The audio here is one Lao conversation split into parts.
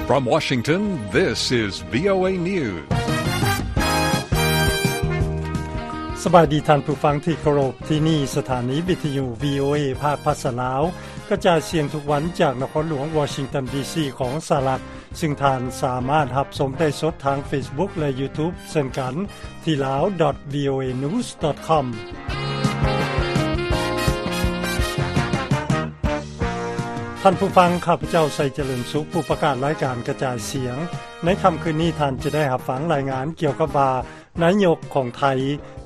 From Washington, this is VOA News. ສະບາຍດີທ່ານຜູ້ຟັງທີ່ເຄົາລົບ, ທີ່ນີ້ສະຖານີວິທະຍຸ VOA ພາກພາສາລາວ ກະຈາຍສຽງທຸກວັນຈາກນະຄອນຫຼວງວໍຊິງຕັນ ດີຊີ ຂອງສະຫະລັດ, ຊຶ່ງທ່ານສາມາດຮັບຊົມໄດ້ສົດທາງ Facebook ແລະ YouTube ເຊັ່ນກັນ ທີ່ lao dot voanews dot com. ທ່ານຜູ້ຟັງ, ຂ້າພະເຈົ້າ ໄຊຈະເລີນສຸກ, ຜູ້ປະກາດລາຍການກະຈາຍສຽງ. ໃນຄ່ຳຄືນນີ້, ທ່ານຈະໄດ້ຮັບຟັງລາຍງານກ່ຽວກັບວ່າ ນາຍົກຂອງໄທ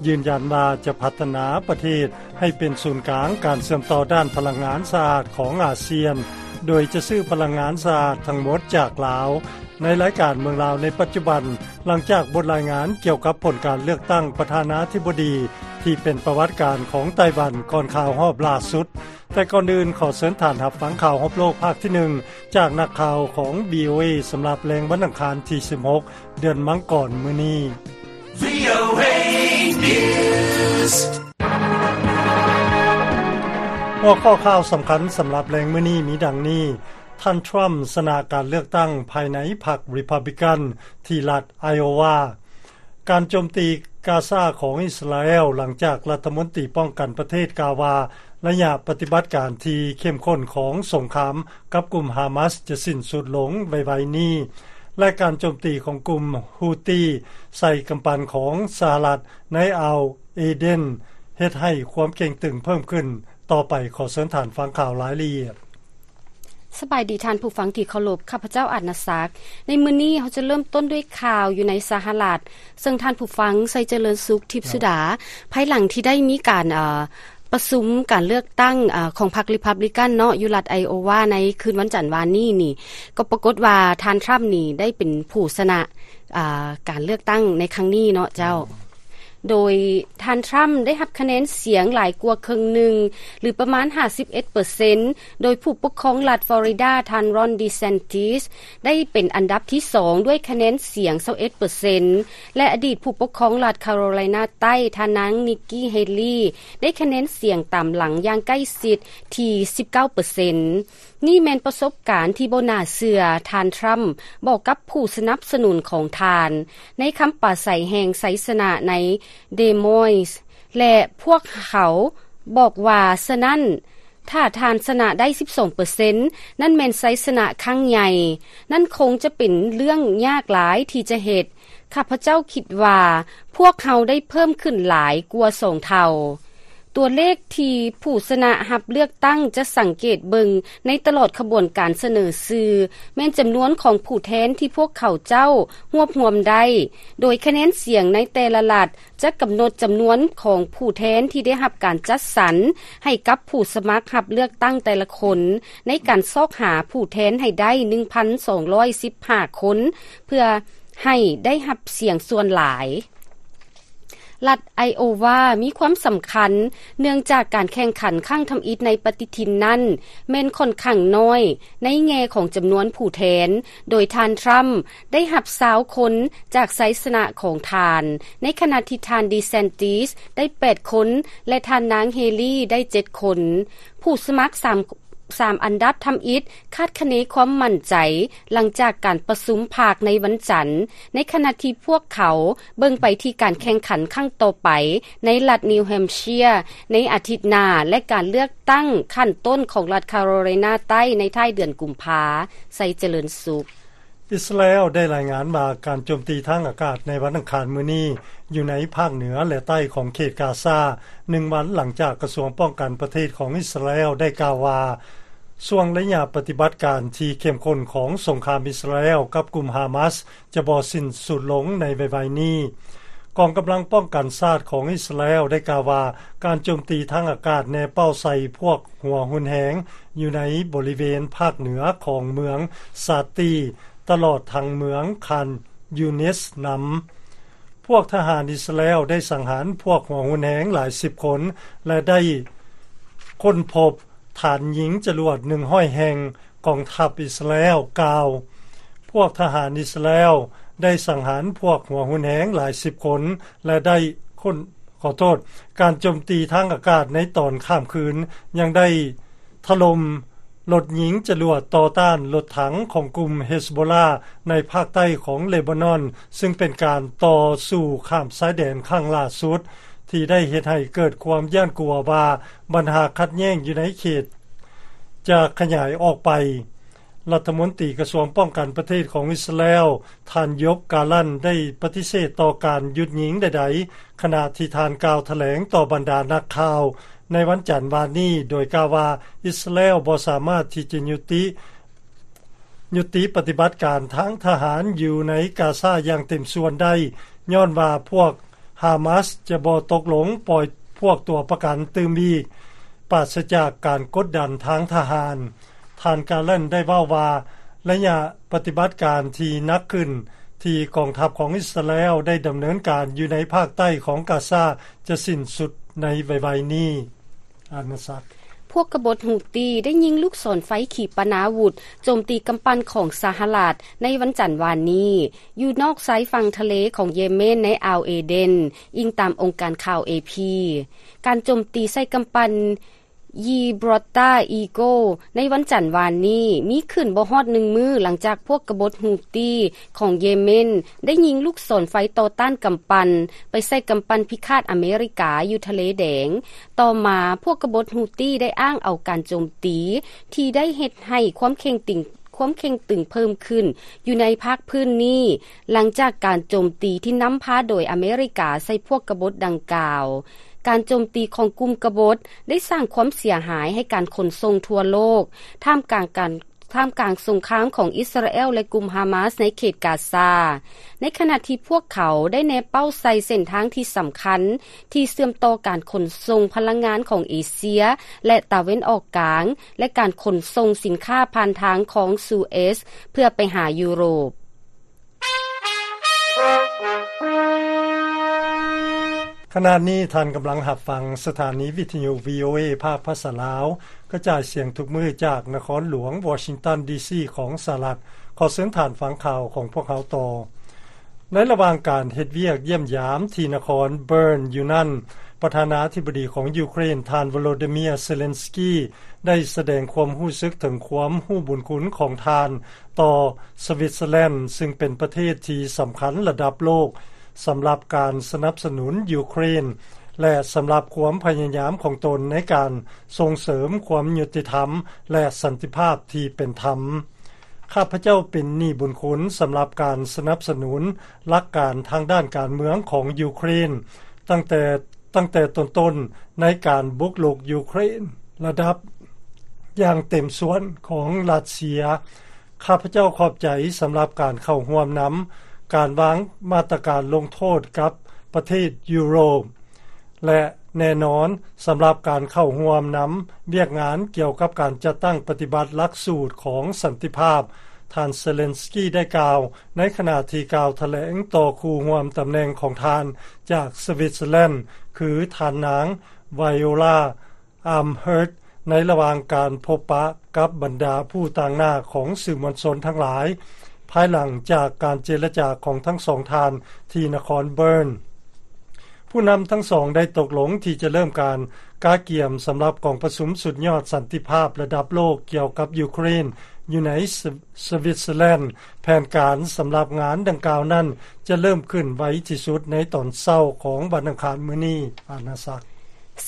ຢືນຢັນວ່າຈະພັດທະນາປະເທດໃຫ້ເປັນສູນກາງການເຊື່ອມຕໍ່ດ້ານພະລັງງານສະອາດຂອງອາຊຽນ, ໂດຍຈະຊື້ພະລັງງານສະອາດທັງໝົດຈາກລາວ. ໃນລາຍການເມືອງລາວໃນປັດຈຸບັນ, ຫຼັງຈາກບົດລາຍງານກ່ຽວກັບຜົນການເລືອກຕັ້ງປະທານາທິບໍດີທີ່ເປັນປະຫວັດການຂອງໄຕ້ຫວັນກ່ອນຂ່າວຮອບລ່າສຸດ, ແຕ່ກ່ອນອື່ນຂໍເຊີນທ່ານຮັບຟັງຂ່າວຮອບໂລກພາກທີໜຶ່ງ ຈາກນັກຂ່າວຂອງ VOA ສຳລັບແລງວັນອັງຄານທີສິບຫົກ ເດືອນມັງກອນມື້ນີ້. VOA News. ຫົວຂໍ້ຂ່າວສຳຄັນສຳລັບແລງມື້ນີ້ມີດັ່ງນີ້: ທ່ານທຣຳຊະນະການເລືອກຕັ້ງພາຍໃນພັກ Republican ທີ່ລັດ Iowa. ການໂຈມຕີກາຊາຂອງອິດສະຣາແອລ ຫຼັງຈາກລັດຖະມົນຕີປ້ອງກັນປະເທດກ່າວວ່າ ໄລຍະປະຕິບັດການທີ່ເຂັ້ມຂຸ້ນຂອງສົງຄາມກັບກຸ່ມຮາມາສຈະສິ້ນສຸດລົງໄວໆນີ້ ແລະ ການໂຈມຕີຂອງກຸ່ມ Houthi ໃສ່ກຳປັ່ນຂອງສະຫະລັດໃນອ່າວເອເດນ ເຮັດໃຫ້ຄວາມເຄັ່ງຕຶງເພີ່ມຂຶ້ນຕໍ່ໄປ. ຂໍເຊີນທ່ານຟັງຂ່າວລາຍລະອຽດ. ສະບາຍດີທ່ານຜູ້ຟັງທີ່ເຄົາລົບ, ຂ້າພະເຈົ້າ ອາດນາສັກ. ໃນມື້ນີ້ເຮົາຈະເລີ່ມຕົ້ນດ້ວຍຂ່າວຢູ່ໃນສະຫະລັດ, ເຊິ່ງທ່ານຜູ້ຟັງ ໄຊຈະເລີນສຸກ ທິບສຸດາ, ພາຍຫຼັງທີ່ໄດ້ມີການ ເອີ ປະຊຸມການເລືອກຕັ້ງ ເອີ ຂອງພັກ Republican ເນາະ ຢູ່ລັດ Iowa ໃນຄືນວັນຈັນວານນີ້ນີ້, ກໍປາກົດວ່າທ່ານທຣຳນີ້ໄດ້ເປັນຜູ້ຊະນະ ອາ ການເລືອກຕັ້ງໃນຄັ້ງນີ້ເນາະເຈົ້າ. ໂດຍທ່ານທຣຳໄດ້ຮັບຄະແນນສຽງຫຼາຍກວ່າເຄິ່ງໜຶ່ງ ຫຼື ປະມານຫ້າສິບເອັດເປີເຊັນ ໂດຍຜູ້ປົກຄອງລັດຟລໍຣິດາ ທ່ານ Ron DeSantis ໄດ້ເປັນອັນດັບທີສອງດ້ວຍຄະແນນສຽງຊາວເອັດເປີເຊັນ ແລະ ອະດີດຜູ້ປົກຄອງລັດຄາໂຣໄລນາໃຕ້ ທ່ານນາງ Nikki Haley ໄດ້ຄະແນນສຽງຕາມຫຼັງຢ່າງໃກ້ຊິດທີ່ສິບເກົ້າເປີເຊັນ. ນີ້ແມ່ນປະສົບການທີ່ບໍ່ໜ້າເຊື່ອ. ທ່ານທຣຳບອກກັບຜູ້ສະໜັບສະໜູນຂອງທ່ານໃນຄຳປາໄສແຫ່ງໄຊຊະນະໃນ Des Moines ແລະ ພວກເຂົາບອກວ່າ, ສະນັ້ນ, ຖ້າທ່ານຊະນະໄດ້ສິບສອງເປີເຊັນ, ນັ້ນແມ່ນໄຊຊະນະຄັ້ງໃຫຍ່. ນັ້ນຄົງຈະເປັນເລື່ອງຍາກຫຼາຍທີ່ຈະເຮັດ. ຂ້າພະເຈົ້າຄິດວ່າພວກເຮົາໄດ້ເພີ່ມຂຶ້ນຫຼາຍກວ່າສອງເທົ່າ. ຕົວເລກທີ່ຜູ້ຊະນະຮັບເລືອກຕັ້ງຈະສັງເກດເບິ່ງໃນຕະຫຼອດຂະບວນການສະເໜີຊື່ ແມ່ນຈຳນວນຂອງຜູ້ແທນທີ່ພວກເຂົາເຈົ້າຮວບຮວມໄດ້, ໂດຍຄະແນນສຽງໃນແຕ່ລະລັດຈະກຳນົດຈຳນວນຂອງຜູ້ແທນທີ່ໄດ້ຮັບການຈັດສັນໃຫ້ກັບຜູ້ສະໝັກຮັບເລືອກຕັ້ງແຕ່ລະຄົນ ໃນການຊອກຫາຜູ້ແທນໃຫ້ໄດ້ ໜຶ່ງພັນສອງຮ້ອຍສິບຫ້າຄົນ ເພື່ອໃຫ້ໄດ້ຮັບສຽງສ່ວນຫຼາຍ. ລັດໄອໂອວາມີຄວາມສຳຄັນ ເນື່ອງຈາກການແຂ່ງຂັນຄັ້ງທຳອິດໃນປະຕິທິນນັ້ນແມ່ນຂ້ອນຂ້າງນ້ອຍໃນແງ່ຂອງຈຳນວນຜູ້ແທນ, ໂດຍທ່ານທຣຳໄດ້ຮັບຊາວຄົນຈາກໄຊຊະນະຂອງທ່ານ, ໃນຂະນະທີ່ທ່ານດີແຊນຕິສໄດ້ແປດຄົນ ແລະ ທ່ານນາງເຮລີໄດ້ເຈັດຄົນ. ຜູ້ສະໝັກສາມ ສາມອັນດັບທຳອິດຄາດຄະເນຄວາມໝັ້ນໃຈຫຼັງຈາກການປະຊຸມພັກໃນວັນຈັນ, ໃນຂະນະທີ່ພວກເຂົາເບິ່ງໄປທີ່ການແຂ່ງຂັນຄັ້ງຕໍ່ໄປໃນລັດນິວແຮມເຊຍໃນອາທິດໜ້າ ແລະ ການເລືອກຕັ້ງຂັ້ນຕົ້ນຂອງລັດຄາໂຣໄລນາໃຕ້ໃນທ້າຍເດືອນກຸມພາ. ໄຊຈະເລີນສຸກ. ອິດສະຣາແອລໄດ້ລາຍງານວ່າ ການໂຈມຕີທາງອາກາດໃນວັນອັງຄານມື້ນີ້ ຢູ່ໃນພາກເໜືອ ແລະ ໃຕ້ຂອງເຂດກາຊາ, ໜຶ່ງວັນຫຼັງຈາກກະຊວງປ້ອງກັນປະເທດຂອງອິດສະຣາແອລໄດ້ກ່າວວ່າ ຊ່ວງໄລຍະປະຕິບັດການທີ່ເຂັ້ມຂຸ້ນຂອງສົງຄາມອິດສະຣາແອລກັບກຸ່ມຮາມາສຈະບໍ່ສິ້ນສຸດລົງໃນໄວໆນີ້. ກອງກຳລັງປ້ອງກັນຊາດຂອງອິດສະຣາແອລໄດ້ກ່າວວ່າ ການໂຈມຕີທາງອາກາດແນເປົ້າໃສ່ພວກຫົວຮຸນແຮງຢູ່ໃນບໍລິເວນພາກເໜືອຂອງເມືອງຊາຕີ ຕະຫຼອດທັງເມືອງຄານຢູນິສນຳ. ພວກທະຫານອິດສະຣາແອລໄດ້ສັງຫານພວກຫົວຮຸນແຮງຫຼາຍສິບຄົນ ແລະ ໄດ້ຄົ້ນພົບຖານຍິງຈະຫຼວດໜຶ່ງຮ້ອຍແຫ່ງ, ກອງທັບອິດສະຣາແອລກ່າວ. ພວກທະຫານອິດສະຣາແອລໄດ້ສັງຫານພວກຫົວຮຸນແຮງຫຼາຍສິບຄົນ ແລະ ໄດ້ຄົ້ນ, ຂໍໂທດ, ການໂຈມຕີທາງອາກາດໃນຕອນຂ້າມຄືນຍັງໄດ້ ຖະຫຼົ່ມ ລົດຍິງຈະຫຼວດຕໍ່ຕ້ານລົດຖັງຂອງກຸ່ມເຮສໂບລາໃນພາກໃຕ້ຂອງເລບານອນ, ຊຶ່ງເປັນການຕໍ່ສູ້ຂ້າມຊາຍແດນຄັ້ງລ່າສຸດ ທີ່ໄດ້ເຮັດໃຫ້ເກີດຄວາມຢ້ານກົວວ່າບັນຫາຂັດແຍ່ງຢູ່ໃນເຂດຈະຂະຫຍາຍອອກໄປ. ລັດຖະມົນຕີກະຊວງປ້ອງກັນປະເທດຂອງອິດສະຣາແອລ ທ່ານ ໂຢບ ກາລັນ ໄດ້ປະຕິເສດຕໍ່ການຢຸດຍິງໃດໆ, ຂະນະທີ່ທ່ານກ່າວຖະແຫຼງຕໍ່ບັນດານັກຂ່າວໃນວັນຈັນວານນີ້ ໂດຍກ່າວວ່າ ອິດສະຣາແອລບໍ່ສາມາດທີ່ຈະຍຸຕິ ຍຸຕິປະຕິບັດການທາງທະຫານຢູ່ໃນກາຊາຢ່າງເຕັມສ່ວນໄດ້, ຍ້ອນວ່າພວກຮາມາສຈະບໍ່ຕົກລົງປ່ອຍພວກຕົວປະກັນຕື່ມອີກ, ປາສະຈາກການກົດດັນທາງທະຫານ. ທ່ານກາລັນໄດ້ເວົ້າວ່າ ໄລຍະປະຕິບັດການທີ່ໜັກຂຶ້ນທີ່ກອງທັບຂອງອິດສະຣາແອລໄດ້ດຳເນີນການຢູ່ໃນພາກໃຕ້ຂອງກາຊາຈະສິ້ນສຸດໃນໄວໆນີ້. ອານາສັກ. ພວກກະບົດຮູ້ຕີໄດ້ຍິງລູກສອນໄຟຂີປະນາວຸດໂຈມຕີກຳປັ່ນຂອງສະຫະລັດໃນວັນຈັນວານນີ້ ຢູ່ນອກຊາຍຝັ່ງທະເລຂອງເຢເມນໃນອ່າວເອເດນ, ອີງຕາມອົງການຂ່າວເອພີ. ການໂຈມຕີໃສ່ກຳປັ່ນ Gibraltar Eagle ໃນວັນຈັນວານນີ້ ມີຂຶ້ນບໍ່ຮອດໜຶ່ງມື້ຫຼັງຈາກພວກກະບົດຮູ້ຕີຂອງເຢເມນໄດ້ຍິງລູກສອນໄຟຕໍ່ຕ້ານກຳປັ່ນໄປໃສ່ກຳປັ່ນພິຄາດອາເມລິກາຢູ່ທະເລແດງ. ຕໍ່ມາພວກກະບົດຮູ້ຕີໄດ້ອ້າງເອົາການໂຈມຕີທີ່ໄດ້ເຮັດໃຫ້ຄວາມເຄັ່ງຕຶງ ຄວາມເຄັ່ງຕຶງເພີ່ມຂຶ້ນຢູ່ໃນພາກພື້ນນີ້ ຫຼັງຈາກການໂຈມຕີທີ່ນຳພາໂດຍອາເມລິກາໃສ່ພວກກະບົດດັ່ງກ່າວ. ການໂຈມຕີຂອງກຸ່ມກະບົດໄດ້ສ້າງຄວາມເສຍຫາຍໃຫ້ການຂົນສົ່ງທົ່ວໂລກ ທ່າມກາງການ ທ່າມກາງສົງຄາມຂອງອິດສະຣາແອລ ແລະ ກຸ່ມຮາມາສໃນເຂດກາຊາ, ໃນຂະນະທີ່ພວກເຂົາໄດ້ແນເປົ້າໃສ່ເສັ້ນທາງທີ່ສຳຄັນ ທີ່ເຊື່ອມຕໍ່ການຂົນສົ່ງພະລັງງານຂອງເອເຊຍ ແລະ ຕາເວັນອອກກາງ ແລະ ການຂົນສົ່ງສິນຄ້າຜ່ານທາງຄອງຊູເອສ ເພື່ອໄປຫາຢູໂຣບ. ຂະນະນີ້ທ່ານກຳລັງຮັບຟັງສະຖານີວິທະຍຸ ວີໂອເອ ພາກພາສາລາວ ກະຈາຍສຽງທຸກມື້ຈາກນະຄອນຫຼວງວໍຊິງຕັນ ດີຊີ ຂອງສະຫະລັດ. ຂໍເຊີນທ່ານຟັງຂ່າວຂອງພວກເຮົາຕໍ່. ໃນລະຫວ່າງການເຮັດວຽກຢ້ຽມຢາມທີ່ນະຄອນເບີນຢູ່ນັ້ນ, ປະທານາທິບໍດີຂອງຢູເຄຣນ ທ່ານ ໂວໂລດີເມຍ ເຊເລັນສກີ ໄດ້ສະແດງຄວາມຮູ້ສຶກເຖິງຄວາມຮູ້ບຸນຄຸນຂອງທ່ານຕໍ່ສະວິດເຊີແລນ ຊຶ່ງເປັນປະເທດທີ່ສຳຄັນລະດັບໂລກສຳລັບການສະໜັບສະໜູນຢູເຄຣນ ແລະ ສຳລັບຄວາມພະຍາຍາມຂອງຕົນໃນການສົ່ງເສີມຄວາມຍຸຕິທຳ ແລະ ສັນຕິພາບທີ່ເປັນທຳ. ຂ້າພະເຈົ້າເປັນໜີ້ບຸນຄຸນສຳລັບການສະໜັບສະໜູນຫຼັກການທາງດ້ານການເມືອງຂອງຢູເຄຣນ ຕັ້ງແຕ່ ຕັ້ງແຕ່ຕົ້ນໆ ໃນການບຸກລຸກຢູເຄຣນລະດັບຢ່າງເຕັມສ່ວນຂອງຣັດເຊຍ. ຂ້າພະເຈົ້າຂອບໃຈສຳລັບການເຂົ້າຮ່ວມນຳການວາງມາດຕະການລົງໂທດກັບປະເທດຢູໂຣບ ແລະ ແນ່ນອນສຳລັບການເຂົ້າຮ່ວມນຳວຽກງານກ່ຽວກັບການຈັດຕັ້ງປະຕິບັດຫຼັກສູດຂອງສັນຕິພາບ, ທ່ານ ເຊເລັນສກີ ໄດ້ກ່າວໃນຂະນະທີ່ກ່າວຖະແຫຼງຕໍ່ຄູ່ຮ່ວມຕຳແໜ່ງຂອງທ່ານຈາກສະວິດເຊີແລນ ຄືທ່ານນາງ ໄວໂອລາ ອາມເຮີດ ໃນລະຫວ່າງການພົບປະກັບບັນດາຜູ້ຕາງໜ້າຂອງສື່ມວນຊົນທັງຫຼາຍ ພາຍຫຼັງຈາກການເຈລະຈາຂອງທັງສອງທ່ານທີ່ນະຄອນເບີນ. ຜູ້ນຳທັງສອງໄດ້ຕົກລົງທີ່ຈະເລີ່ມການກະກຽມສຳລັບກອງປະຊຸມສຸດຍອດສັນຕິພາບລະດັບໂລກກ່ຽວກັບຢູເຄຣນຢູ່ໃນສະ ສະວິດເຊີແລນ. ແຜນການສຳລັບງານດັ່ງກ່າວນັ້ນຈະເລີ່ມຂຶ້ນໄວທີ່ສຸດໃນຕອນເຊົ້າຂອງວັນອັງຄານມື້ນີ້. ອານາສັກ.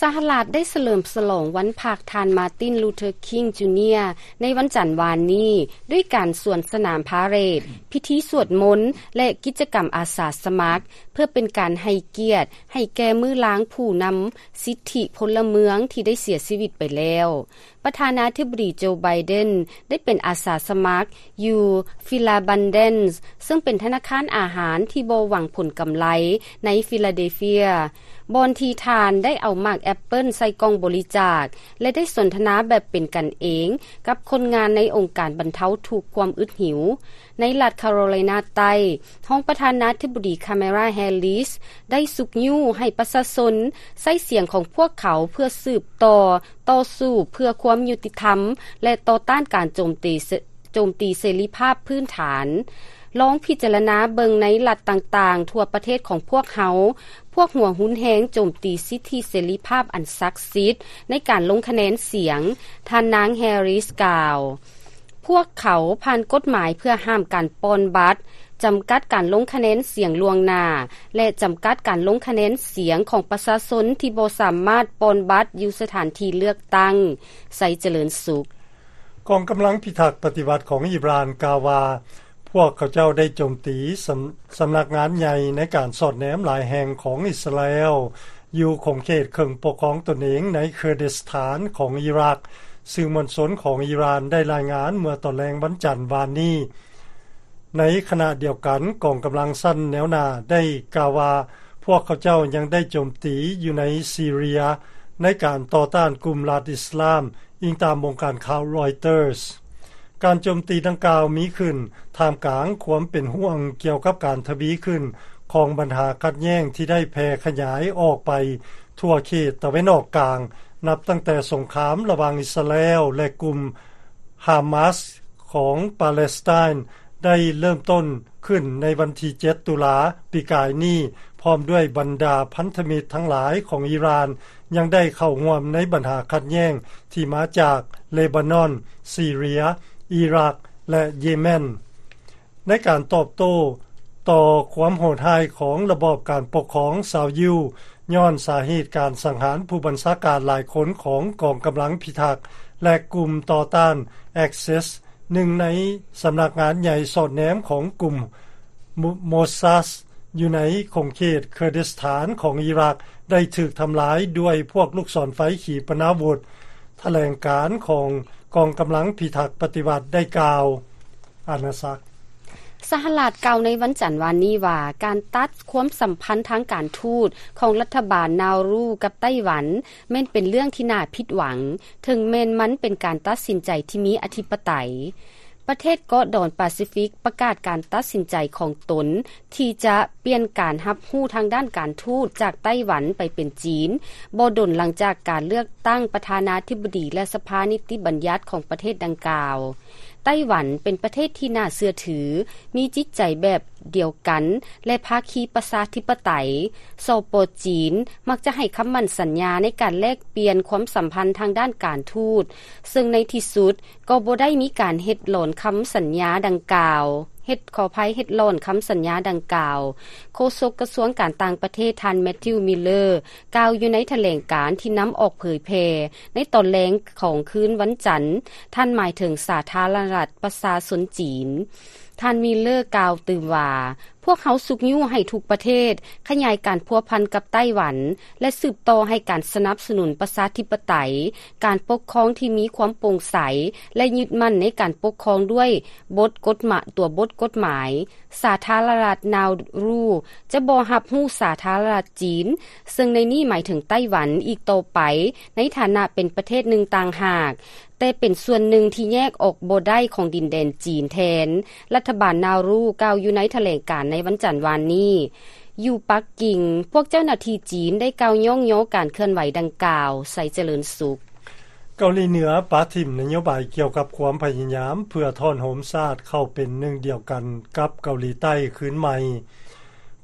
ສະຫະລັດໄດ້ສະເຫຼີມສະຫຼອງວັນພັກທ່ານ ມາຕິນ ລູເທີ ຄິງ ຈູເນຍ ໃນວັນຈັນວານນີ້ ດ້ວຍການສວນສະໜາມພາເຣດ, ພິທີສວດມົນ ແລະ ກິດຈະກຳອາສາສະໝັກ ເພື່ອເປັນການໃຫ້ກຽດໃຫ້ແກ່ມື້ລາງຜູ້ນຳສິດທິພົນລະເມືອງທີ່ໄດ້ເສຍຊີວິດໄປແລ້ວ. ປະທານາທິບໍດີ ໂຈ ໄບເດັນ ໄດ້ເປັນອາສາສະໝັກຢູ່ Philabandan ເຊິ່ງເປັນທະນາຄານອາຫານທີ່ບໍ່ຫວັງຜົນກຳໄລໃນ Philadelphia ບ່ອນທີ່ທ່ານໄດ້ເອົາໝາກແອັບເປິ້ນໃສ່ກ່ອງບໍລິຈາກ ແລະ ໄດ້ສົນທະນາແບບເປັນກັນເອງກັບຄົນງານໃນອົງການບັນເທົາທຸກຄວາມອຶດຫິວ. ໃນລັດຄາໂຣໄລນາໃຕ້, ຮອງປະທານາທິບໍດີ ຄາເມລາ ແຮລິສ ໄດ້ຊຸກຍູ້ໃຫ້ປະຊາຊົນໃຊ້ສຽງຂອງພວກເຂົາເພື່ອສືບຕໍ່ຕໍ່ສູ້ເພື່ອຄວາມຍຸຕິທຳ ແລະ ຕໍ່ຕ້ານການໂຈມຕີ ໂຈມຕີເສລີພາບພື້ນຖານ. ລອງພິຈາລະນາເບິ່ງໃນລັດຕ່າງໆທົ່ວປະເທດຂອງພວກເຮົາ, ພວກຫົວຮຸນແຮງໂຈມຕີສິດທິເສລີພາບອັນສັກສິດໃນການລົງຄະແນນສຽງ, ທ່ານນາງ ແຮຣິສ ກ່າວ. ພວກເຂົາຜ່ານກົດໝາຍເພື່ອຫ້າມການປ່ອນບັດ, ຈຳກັດການລົງຄະແນນສຽງລ່ວງໜ້າ ແລະ ຈຳກັດການລົງຄະແນນສຽງຂອງປະຊາຊົນທີ່ບໍ່ສາມາດປ່ອນບັດຢູ່ສະຖານທີ່ເລືອກຕັ້ງ. ໄຊຈະເລີນສຸກ. ກອງກຳລັງພິທັກປະຕິວັດຂອງອີຣານກ່າວວ່າ ພວກເຂົາເຈົ້າໄດ້ໂຈມຕີສຳ ສຳນັກງານໃຫຍ່ໃນການສອດແນມຫຼາຍແຫ່ງຂອງອິດສະຣາແອລ ຢູ່ຂົງເຂດເຄິ່ງປົກຄອງຕົນເອງໃນເຄີດິສຖານຂອງອີຣັກ, ສື່ມວນຊົນຂອງອີຣານໄດ້ລາຍງານເມື່ອຕອນແລງວັນຈັນວານນີ້. ໃນຂະນະດຽວກັນ, ກອງກຳລັງຊັ້ນແນວໜ້າໄດ້ກ່າວວ່າ ພວກເຂົາເຈົ້າຍັງໄດ້ໂຈມຕີຢູ່ໃນຊີເຣຍໃນການຕໍ່ຕ້ານກຸ່ມລັດອິດສະລາມ, ອີງຕາມວົງການຂ່າວຣອຍເຕີສ. ການໂຈມຕີດັ່ງກ່າວມີຂຶ້ນທ່າມກາງຄວາມເປັນຫ່ວງກ່ຽວກັບການທະວີຂຶ້ນຂອງບັນຫາຂັດແຍ່ງທີ່ໄດ້ແຜ່ຂະຫຍາຍອອກໄປທົ່ວເຂດຕາເວັນອອກກາງ, ນັບຕັ້ງແຕ່ສົງຄາມລະຫວ່າງອິດສະຣາແອລ ແລະ ກຸ່ມຮາມາສຂອງປາເລສໄຕນ ໄດ້ເລີ່ມຕົ້ນຂຶ້ນໃນວັນທີເຈັດ ຕຸລາປີກາຍນີ້, ພ້ອມດ້ວຍບັນດາພັນທະມິດທັງຫຼາຍຂອງອີຣານ ຍັງໄດ້ເຂົ້າຮ່ວມໃນບັນຫາຂັດແຍ່ງທີ່ມາຈາກເລບານອນ, ຊີເຣຍ, ອີຣັກ ແລະ ເຢເມັນ. ໃນການຕອບໂຕ້ຕໍ່ຄວາມໂຫດຮ້າຍຂອງລະບອບການປົກຄອງຊາວຢິວ, ຍ້ອນສາເຫດການສັງຫານຜູ້ບັນຊາການຫຼາຍຄົນຂອງກອງກຳລັງພິທັກ ແລະ ກຸ່ມຕໍ່ຕ້ານ ແອັກເຊັສ ໜຶ່ງໃນສຳນັກງານໃຫຍ່ສອດແນມຂອງກຸ່ມໂມ ໂມຊາດ ຢູ່ໃນຂົງເຂດເຄີດິສຖານຂອງອີຣັກ ໄດ້ຖືກທຳລາຍດ້ວຍພວກລູກສອນໄຟຂີປະນາວຸດ, ຖະແຫຼງການຂອງກອງກຳລັງພິທັກປະຕິວັດໄດ້ກ່າວ. ອານາສັກ. ສະຫະລັດກ່າວໃນວັນຈັນວານນີ້ວ່າ ການຕັດຄວາມສຳພັນທາງການທູດຂອງລັດຖະບານນາວຣູກັບໄຕ້ຫວັນ ແມ່ນເປັນເລື່ອງທີ່ໜ້າຜິດຫວັງ, ເຖິງແມ່ນມັນເປັນການຕັດສິນໃຈທີ່ມີອະທິປະໄຕ. ປະເທດເກາະດອນປາຊີຟິກປະກາດການຕັດສິນໃຈຂອງຕົນທີ່ຈະປ່ຽນການຮັບຮູ້ທາງດ້ານການທູດຈາກໄຕ້ຫວັນໄປເປັນຈີນ, ບໍ່ດົນຫຼັງຈາກການເລືອກຕັ້ງປະທານາທິບໍດີ ແລະ ສະພານິຕິບັນຍັດຂອງປະເທດດັ່ງກ່າວ. ໄຕ້ຫວັນເປັນປະເທດທີ່ໜ້າເຊື່ອຖື, ມີຈິດໃຈແບບດຽວກັນ ແລະ ພາຄີປະຊາທິປະໄຕ. ສປ ຈີນ ມັກຈະໃຫ້ຄຳໝັ້ນສັນຍາໃນການແລກປ່ຽນຄວາມສຳພັນທາງດ້ານການທູດ, ເຊິ່ງໃນທີ່ສຸດກໍບໍ່ໄດ້ມີການເຮັດຫຼອນຄຳສັນຍາດັ່ງກ່າວ, ເຮັດ, ຂໍອະໄພ, ເຮັດຫຼອນຄຳສັນຍາດັ່ງກ່າວ. ໂຄສົກກະຊວງການຕ່າງປະເທດ ທ່ານ ແມັດທິວ ມິລເລີ ກ່າວຢູ່ໃນຖະແຫຼງການທີ່ນຳອອກເຜີຍແຜ່ໃນຕອນແລງຂອງຄືນວັນຈັນ, ທ່ານໝາຍເຖິງສາທາລະນະລັດປະຊາຊົນຈີນ. ທ່ານ ມິລເລີ ກ່າວຕື່ມວ່າ, ພວກເຮົາຊຸກຍູ້ໃຫ້ທຸກປະເທດຂະຫຍາຍການພົວພັນກັບໄຕ້ຫວັນ ແລະ ສືບຕໍ່ໃຫ້ການສະໜັບສະໜູນປະຊາທິປະໄຕ, ການປົກຄອງທີ່ມີຄວາມໂປ່ງໃສ ແລະ ຍຶດໝັ້ນໃນການປົກຄອງດ້ວຍບົດກົດໝາຍ, ຕົວບົດກົດໝາຍ. ສາທາລະນະລັດນາວຣູຈະບໍ່ຮັບຮູ້ສາທາລະນະລັດຈີນ, ເຊິ່ງໃນນີ້ໝາຍເຖິງໄຕ້ຫວັນອີກຕໍ່ໄປ ໃນຖານະເປັນປະເທດໜຶ່ງຕ່າງຫາກ, ແຕ່ເປັນສ່ວນໜຶ່ງທີ່ແຍກອອກບໍ່ໄດ້ຂອງດິນແດນຈີນແທນ, ລັດຖະບານນາວຣູກ່າວຢູ່ໃນຖະແຫຼງການໃນວັນຈັນວານນີ້. ຢູ່ປັກກິ່ງ, ພວກເຈົ້າໜ້າທີ່ຈີນໄດ້ກ່າວຍ້ອງຍໍການເຄື່ອນໄຫວດັ່ງກ່າວ. ໄຊຈະເລີນສຸກ. ເກົາຫຼີເໜືອປະຖິ້ມນະໂຍບາຍກ່ຽວກັບຄວາມພະຍາຍາມເພື່ອທ້ອນໂຮມຊາດເຂົ້າເປັນໜຶ່ງດຽວກັນກັບເກົາຫຼີໃຕ້ຄືນໃໝ່.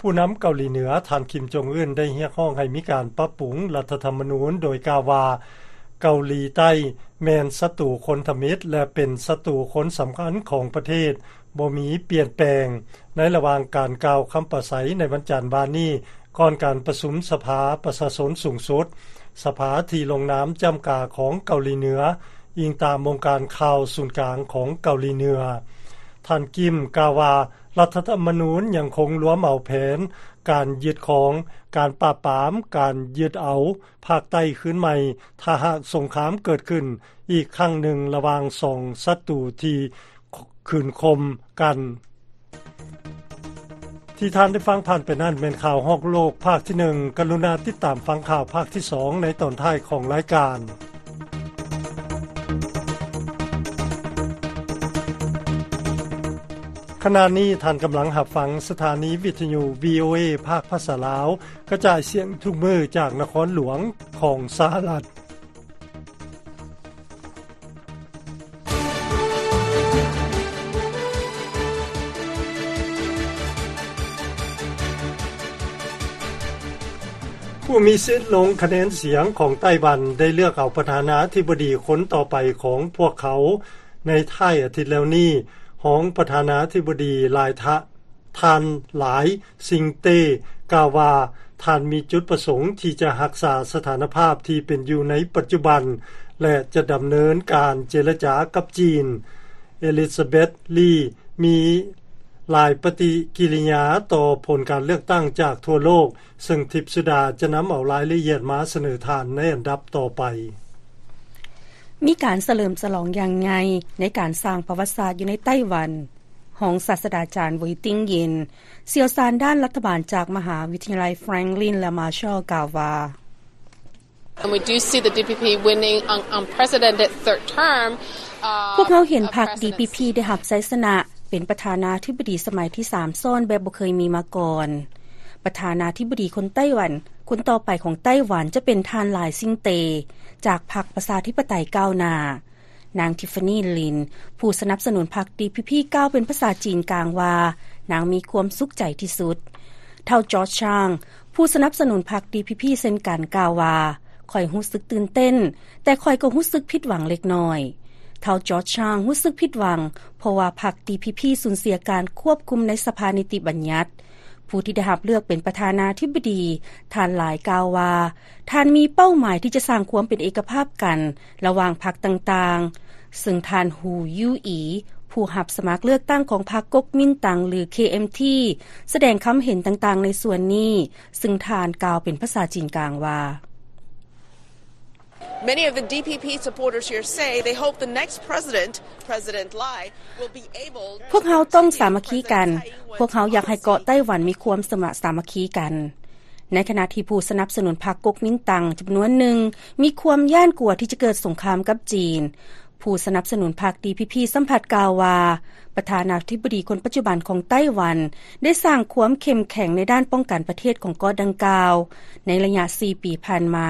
ຜູ້ນຳເກົາຫຼີເໜືອ ທ່ານ ຄິມ ຈົງອຶນ ໄດ້ຮຽກຮ້ອງໃຫ້ມີການປັບປຸງລັດຖະທຳມະນູນ, ໂດຍກ່າວວ່າ ເກົາຫຼີໃຕ້ແມ່ນສັດຕູຄົນທຳອິດ ແລະ ເປັນສັດຕູຄົນສຳຄັນຂອງປະເທດ, ບໍ່ມີປ່ຽນແປງ. ໃນລະຫວ່າງການກ່າວຄຳປາໄສໃນວັນຈັນວານນີ້, ກ່ອນການປະຊຸມສະພາປະຊາຊົນສູງສຸດ, ສະພາທີ່ລົງນາມຈ້ຳກາຂອງເກົາຫຼີເໜືອ, ອີງຕາມວົງການຂ່າວສູນກາງຂອງເກົາຫຼີເໜືອ. ທ່ານ ກິມ ກ່າວວ່າ ລັດຖະທຳມະນູນຍັງຄົງລວມເອົາແຜນການຍຶດຄອງ, ການປາບປາມ, ການຍຶດເອົາພາກໃຕ້ຄືນໃໝ່, ຖ້າຫາກສົງຄາມເກີດຂຶ້ນອີກຄັ້ງໜຶ່ງລະຫວ່າງສອງສັດຕູທີ່ ຂ- ຂືນຄົມກັນ. ທີ່ທ່ານໄດ້ຟັງຜ່ານໄປນັ້ນແມ່ນຂ່າວຮອບໂລກພາກທີໜຶ່ງ. ກະລຸນາຕິດຕາມຟັງຂ່າວພາກທີສອງໃນຕອນທ້າຍຂອງລາຍການ. ຂະນະນີ້ທ່ານກຳລັງຮັບຟັງສະຖານີວິທະຍຸ ວີໂອເອ ພາກພາສາລາວ ກະຈາຍສຽງທຸກມື້ຈາກນະຄອນຫຼວງຂອງສະຫະລັດ. ຜູ້ມີສິດລົງຄະແນນສຽງຂອງໄຕ້ຫວັນ ໄດ້ເລືອກເອົາປະທານາທິບໍດີຄົນຕໍ່ໄປຂອງພວກເຂົາໃນທ້າຍອາທິດແລ້ວນີ້. ຮອງປະທານາທິບໍດີຫຼາຍທະ ທ່ານຫຼາຍຊິງເຕ ກ່າວວ່າ ທ່ານມີຈຸດປະສົງທີ່ຈະຮັກສາສະຖານະພາບທີ່ເປັນຢູ່ໃນປັດຈຸບັນ ແລະ ຈະດຳເນີນການເຈລະຈາກັບຈີນ. ເອລິຊາເບັດ ລີ ມີຫຼາຍປະຕິກິລິຍາຕໍ່ຜົນການເລືອກຕັ້ງຈາກທົ່ວໂລກ, ເຊິ່ງທິບສຸດາຈະນຳເອົາລາຍລະອຽດມາສະເໜີທ່ານໃນອັນດັບຕໍ່ໄປ. ມີການສະເຫຼີມສະຫຼອງຢ່າງໃຫຍ່ໃນການສ້າງປະຫວັດສາດຢູ່ໃນໄຕ້ຫວັນ. ຮອງສາດສະດາຈານ ເຫວີຍຕິງເຢັນ ຊ່ຽວຊານດ້ານລັດຖະບານຈາກມະຫາວິທະຍາໄລ Franklin ແລະ Marshall ກ່າວວ່າ And we do see the D P P winning an unprecedented third term. ພວກເຮົາເຫັນພັກ D P P ໄດ້ຮັບໄຊຊະນະເປັນປະທານາທິບໍດີສະໄໝທີສາມຊ້ອນແບບບໍ່ເຄີຍມີມາກ່ອນ. ປະທານາທິບໍດີຄົນໄຕ້ຫວັນ ຄົນຕໍ່ໄປຂອງໄຕ້ຫວັນຈະເປັນທ່ານ ຫຼາຍຊິງເຕ ຈາກພັກປະຊາທິປະໄຕກ້າວໜ້າ. ນາງ Tiffany Lin ຜູ້ສະໜັບສະໜູນພັກ D P P ກ່າວເປັນພາສາຈີນກາງວ່າ ນາງມີຄວາມສຸກໃຈທີ່ສຸດ. ທ້າວ George Chang ຜູ້ສະໜັບສະໜູນພັກ D P P ເຊັ່ນກັນ ກ່າວວ່າ ຂ້ອຍຮູ້ສຶກຕື່ນເຕັ້ນ, ແຕ່ຂ້ອຍກໍຮູ້ສຶກຜິດຫວັງເລັກນ້ອຍ. ທ້າວ George Chang ຮູ້ສຶກຜິດຫວັງ ເພາະວ່າພັກ D P P ສູນເສຍການຄວບຄຸມໃນສະພານິຕິບັນຍັດ. ຜູ້ທີ່ໄດ້ຮັບເລືອກເປັນປະທານາທິບໍດີ ທ່ານຫຼາຍກ່າວວ່າ ທ່ານມີເປົ້າໝາຍທີ່ຈະສ້າງຄວາມເປັນເອກະພາບກັນລະຫວ່າງພັກຕ່າງໆ, ເຊິ່ງທ່ານ Hu Yu-i ຜູ້ຮັບສະໝັກເລືອກຕັ້ງຂອງພັກ Kuomintang ຫຼື K M T ສະແດງຄຳເຫັນຕ່າງໆໃນສ່ວນນີ້, ເຊິ່ງທ່ານກ່າວເປັນພາສາຈີນກາງວ່າ Many of the D P P supporters here say they hope the next president, President Lai, will be able to ພວກເຮົາຕ້ອງສາມັກຄີກັນ. ພວກເຮົາຢາກໃຫ້ເກາະໄຕ້ຫວັນມີຄວາມສະມາ ສາມັກຄີກັນ. ໃນຂະນະທີ່ຜູ້ສະໜັບສະໜູນພັກ Kuomintang ຈຳນວນໜຶ່ງມີຄວາມຢ້ານກົວທີ່ຈະເກີດສົງຄາມກັບຈີນ, ຜູ້ສະໜັບສະໜູນພັກ D P P ຊ້ຳພັດກ່າວວ່າ ປະທານາທິບໍດີຄົນປັດຈຸບັນຂອງໄຕ້ຫວັນ ໄດ້ສ້າງຄວາມເຂັ້ມແຂງໃນດ້ານປ້ອງກັນປະເທດຂອງເກາະດັ່ງກ່າວ ໃນໄລຍະສີ່ປີຜ່ານມາ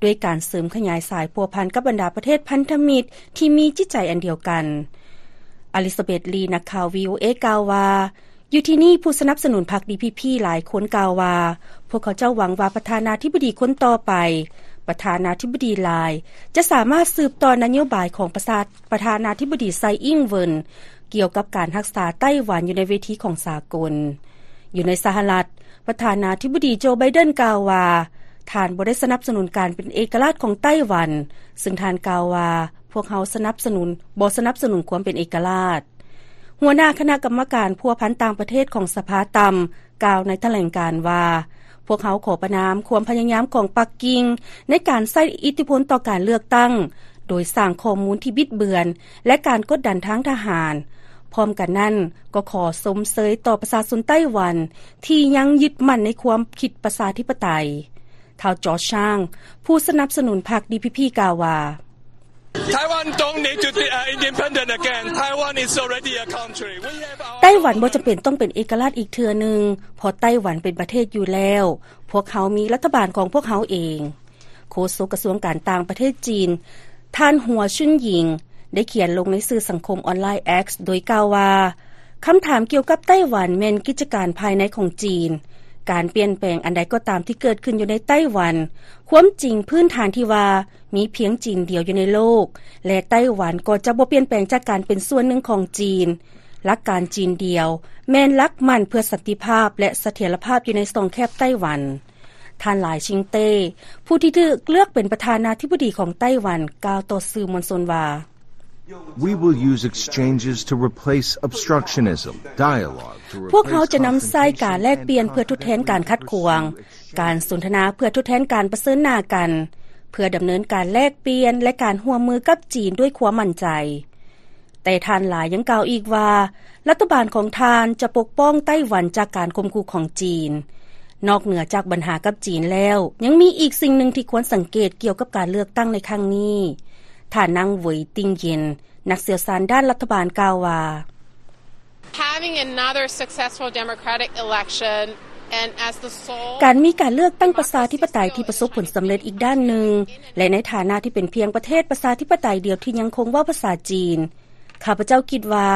ດ້ວຍການເສີມຂະຫຍາຍສາຍພົວພັນກັບບັນດາປະເທດພັນທະມິດທີ່ມີຈິດໃຈອັນດຽວກັນ. ອາລິຊາເບັດ ລີ ນັກຂ່າວ V O A ກ່າວວ່າ ຢູ່ທີ່ນີ້ ຜູ້ສະໜັບສະໜູນພັກ D P P ຫຼາຍຄົນກ່າວວ່າ ພວກເຂົາເຈົ້າຫວັງວ່າປະທານາທິບໍດີຄົນຕໍ່ໄປ, ປະທານາທິບໍດີ Lai ຈະສາມາດສືບຕໍ່ນະໂຍບາຍຂອງປະຊາ ປະທານາທິບໍດີ Tsai Ing-wen ກ່ຽວກັບການຮັກສາໄຕ້ຫວັນຢູ່ໃນເວທີຂອງສາກົນ. ຢູ່ໃນສະຫະລັດ, ປະທານາທິບໍດີ ໂຈ ໄບເດັນ ກ່າວວ່າ ທ່ານບໍ່ໄດ້ສະໜັບສະໜູນການເປັນເອກະລາດຂອງໄຕ້ຫວັນ, ເຊິ່ງທ່ານກ່າວວ່າ ພວກເຮົາສະໜັບສະໜູນ ບໍ່ສະໜັບສະໜູນຄວາມເປັນເອກະລາດ. ຫົວໜ້າຄະນະກຳມະການພົວພັນຕ່າງປະເທດຂອງສະພາຕ່ຳ ກ່າວໃນຖະແຫຼງການວ່າ ພວກເຮົາຂໍປະນາມຄວາມພະຍາຍາມຂອງປັກກິ່ງໃນການໃຊ້ອິດທິພົນຕໍ່ການເລືອກຕັ້ງ ໂດຍສ້າງຂໍ້ມູນທີ່ບິດເບືອນ ແລະ ການກົດດັນທາງທະຫານ. ພ້ອມກັນນັ້ນ ກໍຂໍຊົມເຊີຍຕໍ່ປະຊາຊົນໄຕ້ຫວັນທີ່ຍັງຍຶດໝັ້ນໃນຄວາມຄິດປະຊາທິປະໄຕ. ທ້າວ George Chang ຜູ້ສະໜັບສະໜູນພັກ D P P ກ່າວວ່າ Taiwan don't need to be, uh, independent again. Taiwan is already a country. We have our ໄຕ້ຫວັນບໍ່ຈຳເປັນຕ້ອງເປັນເອກະລາດອີກເທື່ອໜຶ່ງ, ເພາະໄຕ້ຫວັນເປັນປະເທດຢູ່ແລ້ວ. ພວກເຮົາມີລັດຖະບານຂອງພວກເຮົາເອງ. ໂຄສົກກະຊວງການຕ່າງປະເທດຈີນ ທ່ານ ຫົວ ຊຸນຫຍິງ ໄດ້ຂຽນລົງໃນສື່ສັງຄົມອອນລາຍ X ໂດຍກ່າວວ່າ ຄຳຖາມກ່ຽວກັບໄຕ້ຫວັນແມ່ນກິດຈະການພາຍໃນຂອງຈີນ. ການປ່ຽນແປງອັນໃດກໍຕາມທີ່ເກີດຂຶ້ນຢູ່ໃນໄຕ້ຫວັນ, ຄວາມຈິງພື້ນຖານທີ່ວ່າ ມີພຽງຈີນດຽວຢູ່ໃນໂລກ ແລະ ໄຕ້ຫວັນກໍຈະບໍ່ປ່ຽນແປງຈາກການເປັນສ່ວນໜຶ່ງຂອງຈີນ. ຫຼັກການຈີນດຽວແມ່ນຫຼັກໝັ້ນເພື່ອສັນຕິພາບ ແລະ ສະຖຽນລະພາບຢູ່ໃນຊ່ອງແຄບໄຕ້ຫວັນ. ທ່ານ ຫຼາຍຊິງເຕ້ ຜູ້ທີ່ຖືກເລືອກເປັນປະທານາທິບໍດີຂອງໄຕ້ຫວັນ ກ່າວຕໍ່ສື່ມວນຊົນວ່າ We will use exchanges to replace obstructionism, dialogue to replace ພວກເຮົາຈະນຳໃຊ້ການແລກປ່ຽນເພື່ອທົດແທນການຂັດຂວາງ, ການສົນທະນາເພື່ອທົດແທນການປະເຊີນໜ້າກັນ, ເພື່ອດຳເນີນການແລກປ່ຽນ ແລະ ການຮ່ວມມືກັບຈີນດ້ວຍຄວາມໝັ້ນໃຈ. ແຕ່ທ່ານຫຼາຍຍັງກ່າວອີກວ່າ ລັດຖະບານຂອງທ່ານຈະປົກປ້ອງໄຕ້ຫວັນຈາກການຂົ່ມຂູ່ຂອງຈີນ. ນອກເໜືອຈາກບັນຫາກັບຈີນແລ້ວ, ຍັງມີອີກສິ່ງໜຶ່ງທີ່ຄວນສັງເກດກ່ຽວກັບການເລືອກຕັ້ງໃນຄັ້ງນີ້. ທ່ານນາງ ເຫວີຍຕິງເຢັນ ນັກຊ່ຽວຊານດ້ານລັດຖະບານກ່າວວ່າ Having another successful democratic election and as the sole ການມີການເລືອກຕັ້ງປະຊາທິປະໄຕທີ່ປະສົບຜົນສຳເລັດອີກດ້ານໜຶ່ງ ແລະ ໃນຖານະທີ່ເປັນພຽງປະເທດປະຊາທິປະໄຕດຽວທີ່ຍັງຄົງເວົ້າພາສາຈີນ, ຂ້າພະເຈົ້າຄິດວ່າ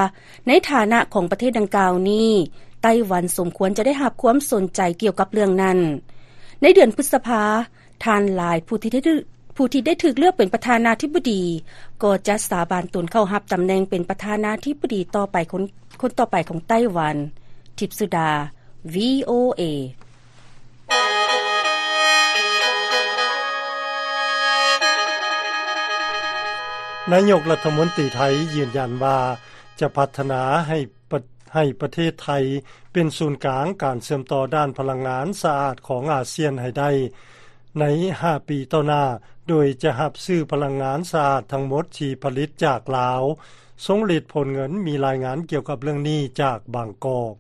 ໃນຖານະຂອງປະເທດດັ່ງກ່າວນີ້, ໄຕ້ຫວັນສົມຄວນຈະໄດ້ຮັບຄວາມສົນໃຈກ່ຽວກັບເລື່ອງນັ້ນ. ໃນເດືອນພຶດສະພາ ທ່ານ ລາຍ ຜູ້ທີ່ໄດ້ຖືກເລືອກເປັນປະທານາທິບໍດີ ກໍຈະສາບານຕົນເຂົ້າຮັບຕຳແໜ່ງເປັນປະທານາທິບໍດີຕໍ່ໄປ ຄົນຕໍ່ໄປຂອງໄຕ້ຫວັນ. ທິບສຸດາ VOA. ນາຍົກລັດຖະມົນຕີໄທຢືນຢັນວ່າ ຈະພັດທະນາໃຫ້ປະ ໃຫ້ປະເທດໄທເປັນສູນກາງການເຊື່ອມຕໍ່ດ້ານພະລັງງານສະອາດຂອງອາຊຽນໃຫ້ໄດ້ໃນຫ້າປີຕໍ່ໜ້າ ໂດຍຈະຮັບຊື້ພະລັງງານສະອາດທັງໝົດທີ່ຜະລິດຈາກລາວ. ຊົງລິດ ໂພນເງິນ ມີລາຍງານກ່ຽວກັບເລື່ອງນີ້ຈາກບາງກອກ.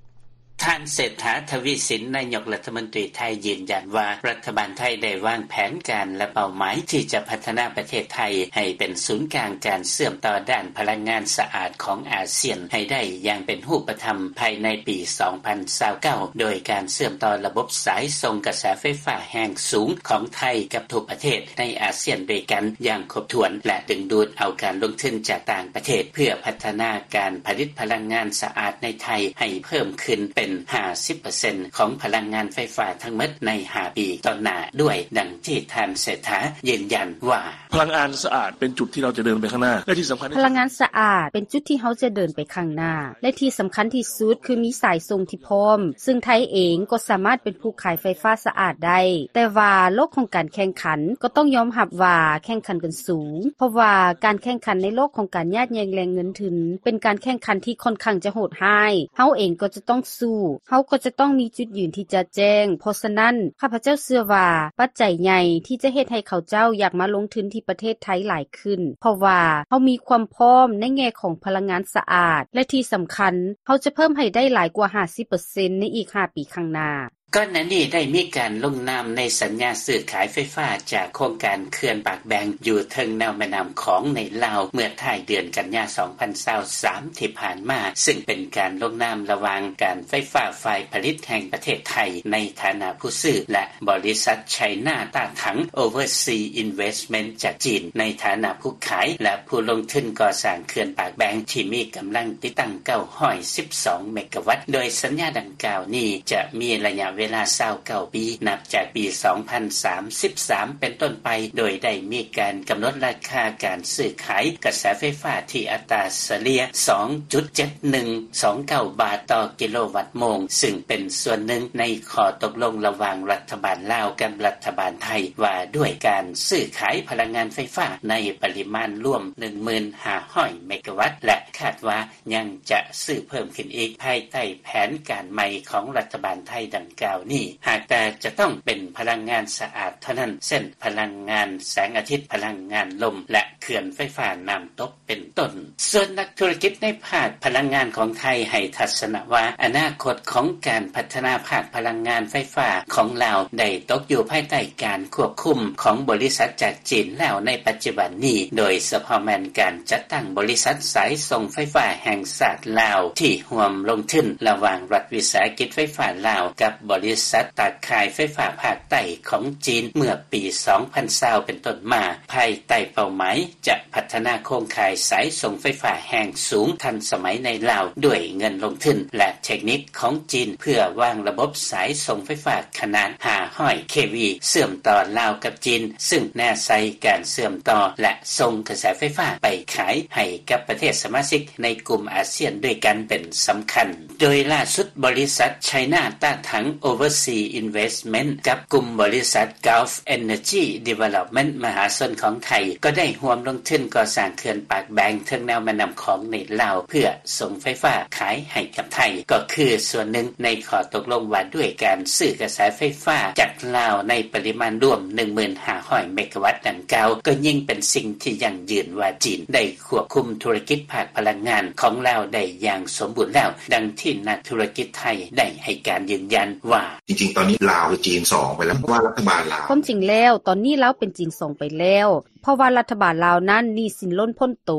ທ່ານ ເສດຖາ ທະວີສິນ ນາຍົກລັດຖະມົນຕີໄທ ຢືນຢັນວ່າ ລັດຖະບານໄທໄດ້ວາງແຜນການ ແລະ ເປົ້າໝາຍທີ່ຈະພັດທະນາປະເທດໄທໃຫ້ເປັນສູນກາງການເຊື່ອມຕໍ່ດ້ານພະລັງງານສະອາດຂອງອາຊຽນໃຫ້ໄດ້ຢ່າງເປັນຮູບປະທຳພາຍໃນປີສອງພັນຊາວເກົ້າ ໂດຍການເຊື່ອມຕໍ່ລະບົບສາຍສົ່ງກະແສໄຟຟ້າແຮງສູງຂອງໄທກັບທຸກປະເທດໃນອາຊຽນດ້ວຍກັນຢ່າງຄົບຖ້ວນ ແລະ ດຶງດູດເອົາການລົງທຶນຈາກຕ່າງປະເທດ ເພື່ອພັດທະນາການຜະລິດພະລັງງານສະອາດໃນໄທໃຫ້ເພີ່ມຂຶ້ນເປັນຫ້າສິບເປີເຊັນຂອງພະລັງງານໄຟຟ້າທັງໝົດໃນຫ້າປີຕໍ່ໜ້າດ້ວຍ, ດັ່ງທີ່ທ່ານເສດຖາຢືນຢັນວ່າ: ພະລັງງານສະອາດເປັນຈຸດທີ່ເຮົາຈະເດີນໄປຂ້າງໜ້າ ແລະທີ່ສຳຄັນ ພະລັງງານສະອາດເປັນຈຸດທີ່ເຮົາຈະເດີນໄປຂ້າງໜ້າ ແລະທີ່ສຳຄັນທີ່ສຸດຄືມີສາຍສົ່ງທີ່ພ້ອມ, ຊຶ່ງໄທເອງກໍສາມາດເປັນຜູ້ຂາຍໄຟຟ້າສະອາດໄດ້. ແຕ່ວ່າໂລກຂອງການແຂ່ງຂັນກໍຕ້ອງຍອມຮັບວ່າແຂ່ງຂັນກັນສູງ, ເພາະວ່າການແຂ່ງຂັນໃນໂລກຂອງການຍາດແຍ່ງແຫຼ່ງເງິນທຶນ ເປັນການແຂ່ງຂັນທີ່ຂ້ອນຂ້າງຈະໂຫດຮ້າຍ. ເຮົາເອງກໍຈະຕ້ອງສູ້, ເຮົາກໍຈະຕ້ອງມີຈຸດຢືນທີ່ຈະແຈ້ງ. ເພາະສະນັ້ນ, ຂ້າພະເຈົ້າເຊື່ອວ່າປັດໄຈໃຫຍ່ທີ່ຈະເຮັດໃຫ້ເຂົາເຈົ້າຢາກມາລົງທຶນທີ່ປະເທດໄທຫຼາຍຂຶ້ນ, ເພາະວ່າເຮົາມີຄວາມພ້ອມໃນແງ່ຂອງພະລັງງານສະອາດ ແລະທີ່ສຳຄັນ, ເຮົາຈະເພີ່ມໃຫ້ໄດ້ຫຼາຍກວ່າຫ້າສິບເປີເຊັນໃນອີກຫ້າປີຂ້າງໜ້າ. ກ່ອນໜ້ານີ້ໄດ້ມີການລົງນາມໃນສັນຍາຊື້ຂາຍໄຟຟ້າຈາກໂຄງການເຂື່ອນປາກແບງຢູ່ເທິງແນວແມ່ນ້ຳຂອງໃນລາວ ເມື່ອທ້າຍເດືອນກັນຍາ ສອງພັນຊາວສາມ ທີ່ຜ່ານມາ, ຊຶ່ງເປັນການລົງນາມລະຫວ່າງການໄຟຟ້າຝ່າຍຜະລິດແຫ່ງປະເທດໄທໃນຖານະຜູ້ຊື້ ແລະ ບໍລິສັດ China Datang Overseas Investment ຈາກຈີນໃນຖານະຜູ້ຂາຍ ແລະ ຜູ້ລົງທຶນກໍ່ສ້າງເຂື່ອນປາກແບງທີ່ມີກຳລັງຕິດຕັ້ງເກົ້າຮ້ອຍສິບສອງເມກາວັດ, ໂດຍສັນຍາດັ່ງກ່າວນີ້ຈະມີໄລຍະເວລາຊາວເກົ້າປີ ນັບຈາກປີສອງພັນສາມສິບສາມເປັນຕົ້ນໄປ, ໂດຍໄດ້ມີການກຳນົດລາຄາການຊື້ຂາຍກະແສໄຟຟ້າທີ່ອັດຕາສະເລ່ຍສອງຈຸດເຈັດໜຶ່ງສອງເກົ້າບາດຕໍ່ກິໂລວັດໂມງ, ຊຶ່ງເປັນສ່ວນໜຶ່ງໃນຂໍ້ຕົກລົງລະຫວ່າງລັດຖະບານລາວກັບລັດຖະບານໄທ ວ່າດ້ວຍການຊື້ຂາຍພະລັງງານໄຟຟ້າໃນປະລິມານລວມໜຶ່ງໝື່ນຫ້າຮ້ອຍເມກາວັດ ແລະ ຄາດວ່າ ຍັງຈະຊື້ເພີ່ມຂຶ້ນອີກ ພາຍໃຕ້ແຜນການໃໝ່ຂອງລັດຖະບານໄທດັ່ງກ່າວນີ້, ຫາກແຕ່ຈະຕ້ອງເປັນພະລັງງານສະອາດເທົ່ານັ້ນ, ເຊັ່ນ ພະລັງງານແສງອາທິດ, ພະລັງງານລົມ ແລະ ເຂື່ອນໄຟຟ້ານ້ຳຕົກເປັນຕົ້ນ. ສ່ວນນັກທຸລະກິດໃນພາກພະລັງງານຂອງໄທໃຫ້ທັດສະນະວ່າ ອະນາຄົດຂອງການພັດທະນາພາກພະລັງງານໄຟຟ້າຂອງລາວໄດ້ຕົກຢູ່ພາຍໃຕ້ການຄວບຄຸມຂອງບໍລິສັດຈາກຈີນແລ້ວໃນປັດຈຸບັນນີ້, ໂດຍສະເພາະແມ່ນການຈັດຕັ້ງບໍລິສັດສາຍສົ່ງໄຟຟ້າແຫ່ງຊາດລາວທີ່ຮ່ວມລົງທຶນລະຫວ່າງລັດວິສາຫະກິດໄຟຟ້າລາວກັບບໍລິສັດຕາຂ່າຍໄຟຟ້າພາກໃຕ້ຂອງຈີນເມື່ອປີສອງພັນຊາວເປັນຕົ້ນມາ, ພາຍໃຕ້ເປົ້າໝາຍຈະພັດທະນາໂຄງຂ່າຍສາຍສົ່ງໄຟຟ້າແຮງສູງທັນສະໄໝໃນລາວດ້ວຍເງິນລົງທຶນ ແລະ ເທັກນິກຂອງຈີນ ເພື່ອວາງລະບົບສາຍສົ່ງໄຟຟ້າຂະໜາດຫ້າຮ້ອຍເຄວີ ເຊື່ອມຕໍ່ລາວກັບຈີນ, ຊຶ່ງແນໃສ່ການເຊື່ອມຕໍ່ ແລະ ສົ່ງກະແສໄຟຟ້າໄປຂາຍໃຫ້ກັບປະເທດສະມາຊິກໃນກຸ່ມອາຊຽນດ້ວຍກັນເປັນສຳຄັນ. ໂດຍລ່າສຸດ, ບໍລິສັດ China Datang Overseas Investment ກັບກຸ່ມບໍລິສັດ Gulf Energy Development ມະຫາຊົນຂອງໄທ ກໍໄດ້ຮ່ວມລົງທຶນກໍ່ສ້າງເຂື່ອນປາກແບງເທິງແນວແມ່ນ້ຳຂອງໃນລາວ ເພື່ອ ສົ່ງໄຟຟ້າຂາຍໃຫ້ກັບໄທ ກໍຄືສ່ວນໜຶ່ງໃນຂໍ້ຕົກລົງວ່າດ້ວຍການຊື້ກະແສໄຟຟ້າຈາກລາວໃນປະລິມານລວມໜຶ່ງໝື່ນຫ້າຮ້ອຍເມກາວັດດັ່ງກ່າວ ກໍຍິ່ງເປັນສິ່ງທີ່ຢັ້ງຢືນວ່າຈີນໄດ້ຄວບຄຸມທຸລະກິດພາກພະລັງງານຂອງລາວໄດ້ຢ່າງສົມບູນແລ້ວ, ດັ່ງທີ່ນັກທຸລະກິດໄທໄດ້ໃຫ້ການຢືນຢັນວ່າ: ຈິງໆ ຕອນນີ້ລາວກັບຈີນສອງໄປແລ້ວ ເພາະວ່າລັດຖະບານລາວ ຄວາມຈິງແລ້ວ ຕອນນີ້ລາວເປັນຈີນສອງໄປແລ້ວ. ເພາະວ່າລັດຖະບານລາວນັ້ນໜີ້ສິນລົ້ນພົ້ນໂຕ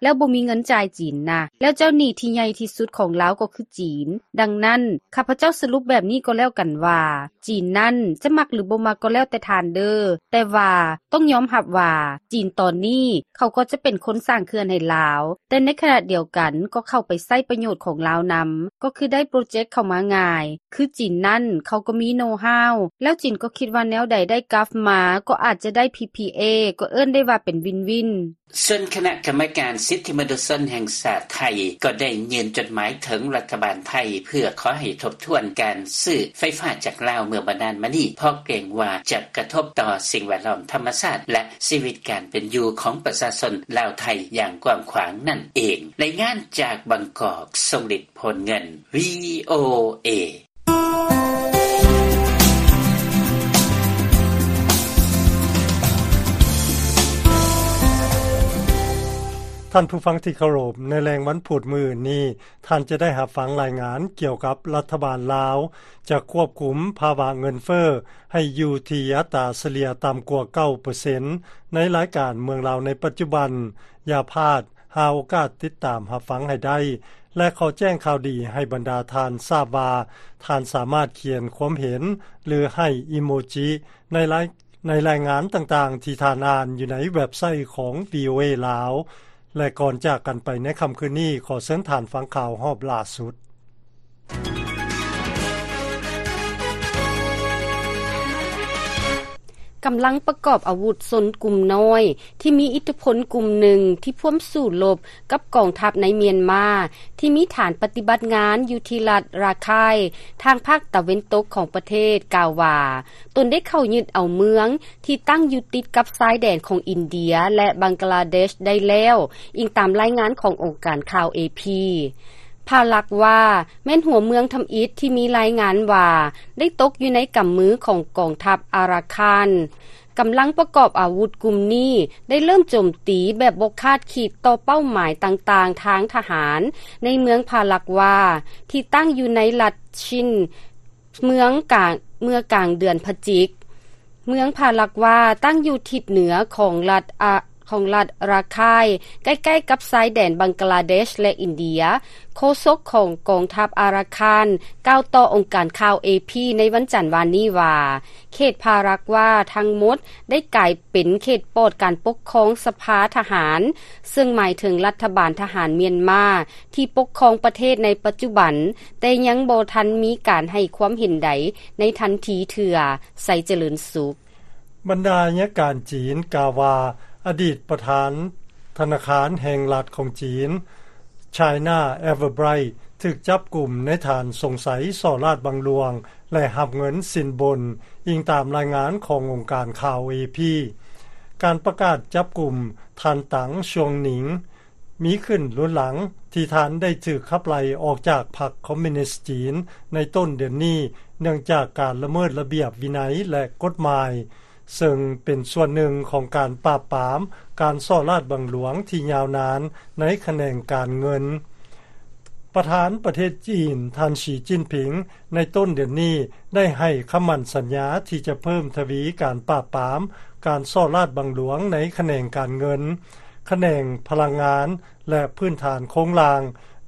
ແລ້ວບໍ່ມີເງິນຈ່າຍຈີນນະ ແລ້ວເຈົ້າໜີ້ທີ່ໃຫຍ່ທີ່ສຸດຂອງລາວກໍຄືຈີນ. ດັ່ງນັ້ນ ຂ້າພະເຈົ້າສະຫຼຸບແບບນີ້ກໍແລ້ວກັນວ່າ ຈີນນັ້ນຈະມັກຫຼືບໍ່ມັກກໍແລ້ວແຕ່ທ່ານເດີ້ ແຕ່ວ່າຕ້ອງຍອມຮັບວ່າ ຈີນຕອນນີ້ເຂົາກໍຈະເປັນຄົນສ້າງເຂື່ອນໃຫ້ລາວ, ແຕ່ໃນຂະນະດຽວກັນກໍເຂົ້າໄປໃຊ້ປະໂຫຍດຂອງລາວນຳ, ກໍຄືໄດ້ໂປຣເຈັກເຂົ້າມາງ່າຍ. ຄືຈີນນັ້ນເຂົາກໍມີໂນຮາວ ແລ້ວຈີນກໍຄິດວ່າແນວໃດໄດ້ກັບມາ ກໍອາດຈະໄດ້ ພີພີເອ ກໍເອີ້ນໄດ້ວ່າເປັນວິນວິນ. ສ່ວນຄະນະກຳມະການສິດທິມະນຸດຊົນແຫ່ງຊາດໄທ ກໍໄດ້ຍື່ນຈົດໝາຍເຖິງລັດຖະບານໄທ ເພື່ອຂໍໃຫ້ທົບທວນການຊື້ໄຟຟ້າຈາກລາວເມື່ອບໍ່ນານມານີ້ ເພາະເກງວ່າຈະກະທົບຕໍ່ສິ່ງແວດລ້ອມທຳມະຊາດ ແລະ ຊີວິດການເປັນຢູ່ຂອງປະຊາຊົນລາວໄທຢ່າງກວ້າງຂວາງນັ້ນເອງ. ລາຍງານຈາກບາງກອກ ຊົງລິດ ໂພນເງິນ ວີໂອເອ. ທ່ານຜູ້ຟັງທີ່ເຄົາລົບ, ໃນແລງວັນພຸດມື້ອື່ນນີ້ ທ່ານຈະໄດ້ຮັບຟັງລາຍງານກ່ຽວກັບລັດຖະບານລາວຈະຄວບຄຸມພາວະເງິນເຟີ້ໃຫ້ຢູ່ທີ່ອັດຕາສະເລ່ຍຕ່ຳກວ່າເກົ້າເປີເຊັນ ໃນລາຍການເມືອງລາວໃນປັດຈຸບັນ. ຢ່າພາດ ຫາໂອກາດຕິດຕາມຮັບຟັງໃຫ້ໄດ້ ແລະ ຂໍແຈ້ງຂ່າວດີໃຫ້ບັນດາທ່ານຊາບວ່າ ທ່ານສາມາດຂຽນຄວາມເຫັນ ຫຼື ໃຫ້ອີໂມຈິໃນລາຍ ໃນລາຍງານຕ່າງໆທີ່ທ່ານອ່ານຢູ່ໃນເວັບໄຊຂອງ ວີໂອເອ ລາວ. ແລະ ກ່ອນຈາກກັນໄປໃນຄ່ຳຄືນນີ້, ຂໍເຊີນທ່ານຟັງຂ່າວຮອບລ່າສຸດ. ກຳລັງປະກອບອາວຸດຊົນກຸ່ມນ້ອຍທີ່ມີອິດທິພົນກຸ່ມໜຶ່ງທີ່ພວມສູ້ລົບກັບກອງທັບໃນມຽນມາ ທີ່ມີຖານປະຕິບັດງານຢູ່ທີ່ລັດຣາຄາຍ ທາງພາກຕາເວັນຕົກຂອງປະເທດ ກ່າວວ່າ ຕົນໄດ້ເຂົ້າຍຶດເອົາເມືອງທີ່ຕັ້ງຢູ່ຕິດກັບຊາຍແດນຂອງອິນເດຍ ແລະ ບັງກະລາເດຊໄດ້ແລ້ວ, ອີງຕາມລາຍງານຂອງອົງການຂ່າວ ເອ ພີ. ພາລັກວາ ແມ່ນຫົວເມືອງທຳອິດທີ່ມີລາຍງານວ່າໄດ້ຕົກຢູ່ໃນກຳມືຂອງກອງທັບອາຣາຄານ. ກຳລັງປະກອບອາວຸດກຸ່ມນີ້ໄດ້ເລີ່ມໂຈມຕີແບບບໍ່ຄາດຄິດຕໍ່ເປົ້າໝາຍຕ່າງໆທາງທະຫານໃນເມືອງພາລັກວາ ທີ່ຕັ້ງຢູ່ໃນລັດຊິນ ເມືອງກາງ ເມື່ອກາງເດືອນພະຈິກ. ເມືອງພາລັກວາຕັ້ງຢູ່ທິດເໜືອຂອງລັດອາ ຂອງລັດຣາຄາຍ ໃກ້ໆກັບຊາຍແດນບັງກະລາເດຊ ແລະ ອິນເດຍ. ໂຄສົກຂອງກອງທັບອາຣາຄານ ກ່າວຕໍ່ອົງການຂ່າວ ເອ ພີ ໃນວັນຈັນວານນີ້ວ່າ ເຂດພາລັກວາທັງໝົດໄດ້ກາຍເປັນເຂດປອດການປົກຄອງສະພາທະຫານ, ເຊິ່ງໝາຍເຖິງລັດຖະບານທະຫານມຽນມາ ທີ່ປົກຄອງປະເທດໃນປັດຈຸບັນ, ແຕ່ຍັງບໍ່ທັນມີການໃຫ້ຄວາມເຫັນໃດໃນທັນທີເທື່ອ. ໄຊຈະເລີນສຸກ. ບັນດາອັຍການຈີນກ່າວວ່າ ອະດີດປະທານທະນາຄານແຫ່ງລັດຂອງຈີນ China Everbright ຖືກຈັບກຸມໃນຖານສົງໄສສໍ້ລາດບັງຫຼວງ ແລະ ຮັບເງິນສິນບົນ, ອີງຕາມລາຍງານຂອງອົງການຂ່າວ ເອ ພີ. ການປະກາດຈັບກຸມທ່ານ ຕາງ ຊວງໜິງ ມີຂຶ້ນລຸນຫຼັງທີ່ທ່ານໄດ້ຖືກຂັບໄລ່ອອກຈາກພັກຄອມມິວນິສຈີນໃນຕົ້ນເດືອນນີ້ ເນື່ອງຈາກການລະເມີດລະບຽບວິໄນ ແລະ ກົດໝາຍ, ເຊິ່ງເປັນສ່ວນໜຶ່ງຂອງການປາບປາມການສໍ້ລາດບັງຫຼວງທີ່ຍາວນານໃນຂະແໜງການເງິນ. ປະທານປະເທດຈີນ ທ່ານ ສີ ຈິ້ນຜິງ ໃນຕົ້ນເດືອນນີ້ໄດ້ໃຫ້ຄຳໝັ້ນສັນຍາທີ່ຈະເພີ່ມທະວີການປາບປາມການສໍ້ລາດບັງຫຼວງໃນຂະແໜງການເງິນ, ຂະແໜງພະລັງງານ ແລະ ພື້ນຖານໂຄງລ່າງ,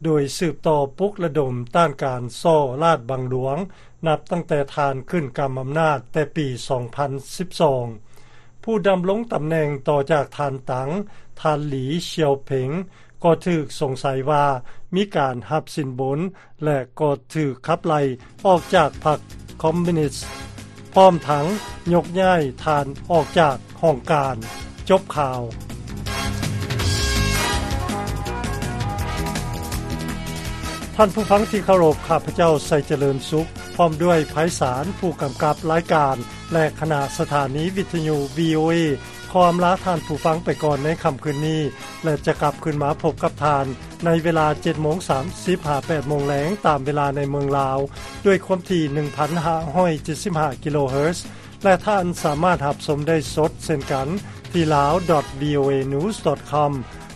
ໂດຍສືບຕໍ່ປຸກລະດົມຕ້ານການສໍ້ລາດບັງຫຼວງ ນັບຕັ້ງແຕ່ທ່ານຂຶ້ນກຳອຳນາດແຕ່ປີສອງພັນສິບສອງ. ຜູ້ດຳລົງຕຳແໜ່ງຕໍ່ຈາກທ່ານ ຕາງ, ທ່ານ ຫຼີ ຊຽວເພັງ ກໍຖືກສົງໄສວ່າມີການຮັບສິນບົນ ແລະ ກໍຖືກຂັບໄລ່ອອກຈາກພັກຄອມມິວນິສ, ພ້ອມທັງຍົກຍ້າຍທ່ານອອກຈາກຫ້ອງການ. ຈົບຂ່າວ. ທ່ານຜູ້ຟັງທີ່ເຄົາລົບ, ຂ້າພະເຈົ້າ ໄຊຈະເລີນສຸກ ພ້ອມດ້ວຍ ໄພສານ ຜູ້ກຳກັບລາຍການ ແລະ ຄະນະສະຖານີວິທະຍຸ ວີໂອເອ ຂໍອຳລາທ່ານຜູ້ຟັງໄປກ່ອນໃນຄ່ຳຄືນນີ້ ແລະ ຈະກັບຄືນມາພົບກັບທ່ານໃນເວລາເຈັດໂມງສາມສິບ ຫາ ແປດໂມງແລງ ຕາມເວລາໃນເມືອງລາວ ດ້ວຍຄວາມຖີ່ໜຶ່ງພັນຫ້າຮ້ອຍເຈັດສິບຫ້າກິໂລເຮີດ ແລະ ທ່ານສາມາດຮັບຊົມໄດ້ສົດເຊັ່ນກັນທີ່ ลາວ ດອດ ວີໂອເອ ນິວສ໌ ດອດ ຄອມ.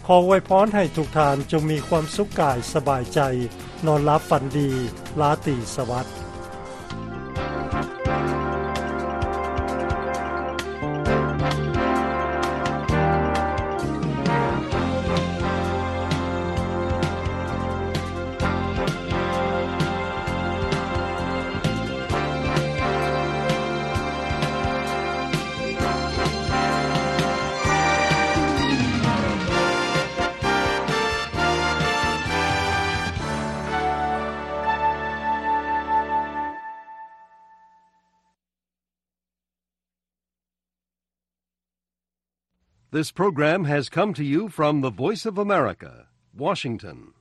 ຂໍອວຍພອນໃຫ້ທຸກທ່ານຈົ່ງມີຄວາມສຸກກາຍສະບາຍໃຈ, ນອນຫຼັບຝັນດີ, ລາຕີສະຫວັດ. This program has come to you from the Voice of America, Washington.